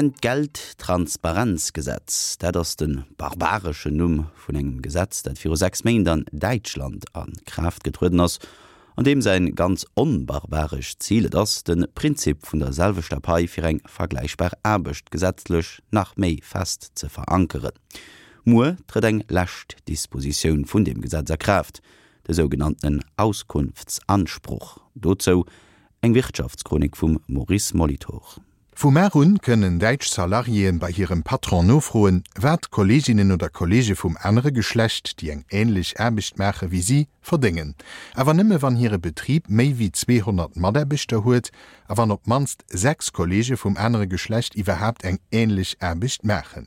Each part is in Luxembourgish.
Entgelttransparenzgesetz, dat ass de barbareschen Numm vun engem Gesetz, dat viru 6 Méint an Däitschland a Kraaft getrueden ass, an deem säin ganz onbarbarescht Zil et ass, de Prinzip vun der selwechter Pai fir eng vergläichbar Aarbecht gesetzlech nach méi fest ze verankeren. Muer trëtt eng lescht Dispositioun vun deem Gesetz a Kraaft, de sougenanntenen Auskunftsanspruch. Dozou eng Wirtschaftschronik vum Maurice Molitor. Vu mar un kënnen däitsch Salariéen bei hirem Patron nofroen, wat Kolleeginnen oder Kolleege vum anere Geschlecht, déi eng änlech Aarbecht maache wéi si, verdéngen. Awer nëmme wann hire Betrib méi wéi 200 Mataarbechter huet a wann op d'mannst 6 Kolleege vum anere Geschlecht iwwerhaapt eng änlech Aarbecht maachen.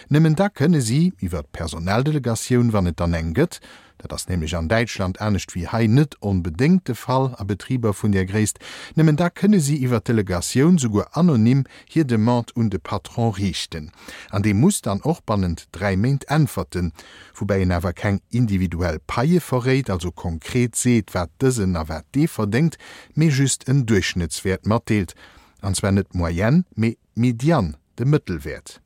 Nëmmen da kënne si, iwwer d'Personaldelegatioun, wann et dann eng gëtt, dat ass nämlech an Däitschland anescht wéi hei net onbedéngt de Fall a Betriber vun där Gréisst, nëmmen da kënne si iwwer d'Delegatioun, souguer anonym, hir Demande un de Patron riichten. An dee muss dann och bannent 3 Méint äntwerten, woubäi en awer keng individuell Paie verréit, also konkret seet, wat dësen a wat dee verdéngt, mee just en Duerchschnëttswäert matdeelt, an zwar net d'Moyenne, mee d'Median, de Mëttelwäert.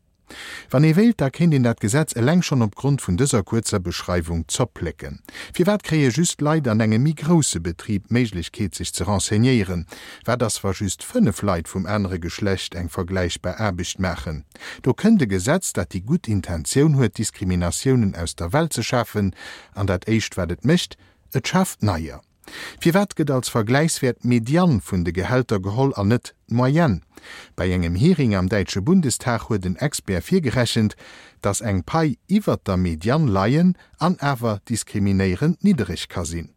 Wann ee wéilt, da kéint een dat Gesetz eleng schonn op Grond vun dëser kuerzer Beschreiwung zerplécken. Firwat kréie just Leit an engem méi grousse Betrib d'Méiglechkeet sech ze renseignéieren? Wat ass wa just 5 Leit vum anere Geschlecht eng vergläichbar Aarbecht maachen? Do kënnt e Gesetz, dat déi gutt Intentioun huet Diskriminatiounen aus der Welt ze schafen, an dat éischt wat et mécht, et schaaft neier. Firwat gëtt als Vergläichswäert d'Median vun de Gehälter geholl an net d'Moyenne? Bei engem Hearing am däitsche Bundestag huet en Expert virgerechent, datt eng Pai iwwert der Median leien an awer diskriminéierend niddereg ka sinn.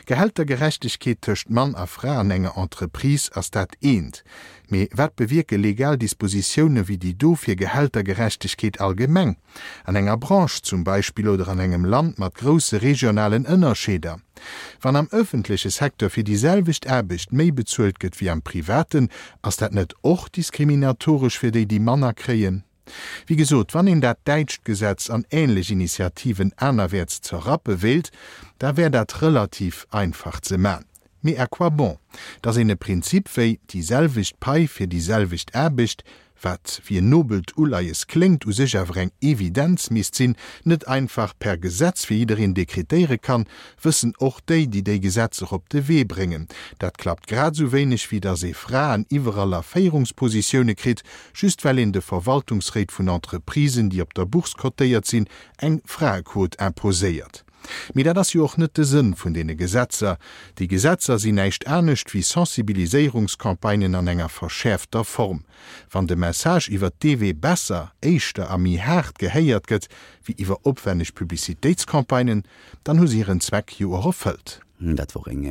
Gehältergerechtegkeet tëscht Mann a Fra an enger Entreprise ass dat eent, mee wat bewierke legal Dispositioune wéi déi do fir Gehältergerechtegkeet allgemeng? An enger Branche zum Beispill oder an engem Land mat grousse regionalen Ënnerscheeder. Wann am ëffentleche Secteur fir déi selwecht Aarbecht méi bezuelt gëtt wéi am privaten, ass dat net och diskriminatoresch fir déi, déi manner kréien? Wéi gesot, wann een dat däitscht Gesetz an änlech Initiativen anerwäerts zerrappe wéilt, da wär dat relativ einfach ze man. Mee à quoi bon? Datt een e Prinzip wéi déi selwecht Pai fir déi selwecht Aarbecht, wat wéi en nobelt Uleies kléngt, u sech awer eng Evidenz misst sinn, net einfach per Gesetz fir jiddereen dekretéiere kann, wëssen och déi, déi déi Gesetzer op de Wee bréngen. Dat klappt grad esou wéineg wéi datt ee Fraen iwwerall a Féierungspositioune kritt, just well een de Verwaltungsréit vun Entreprisen, déi op der Bourse cotéiert sinn, eng Fraequot imposéiert. Mee dat ass jo och net de Sënn vun deene Gesetzer. Déi Gesetzer sinn näischt anescht wéi Sensibiliséierungscampagnen an enger verschäerfter Form. Wann de Message iwwert dee Wee besser, éischter a méi haart gehéiert gëtt wéi iwwer opwenneg Publicitéitscampagnen, dann hu se hiren Zweck jo och erfëllt. Dat wor eng.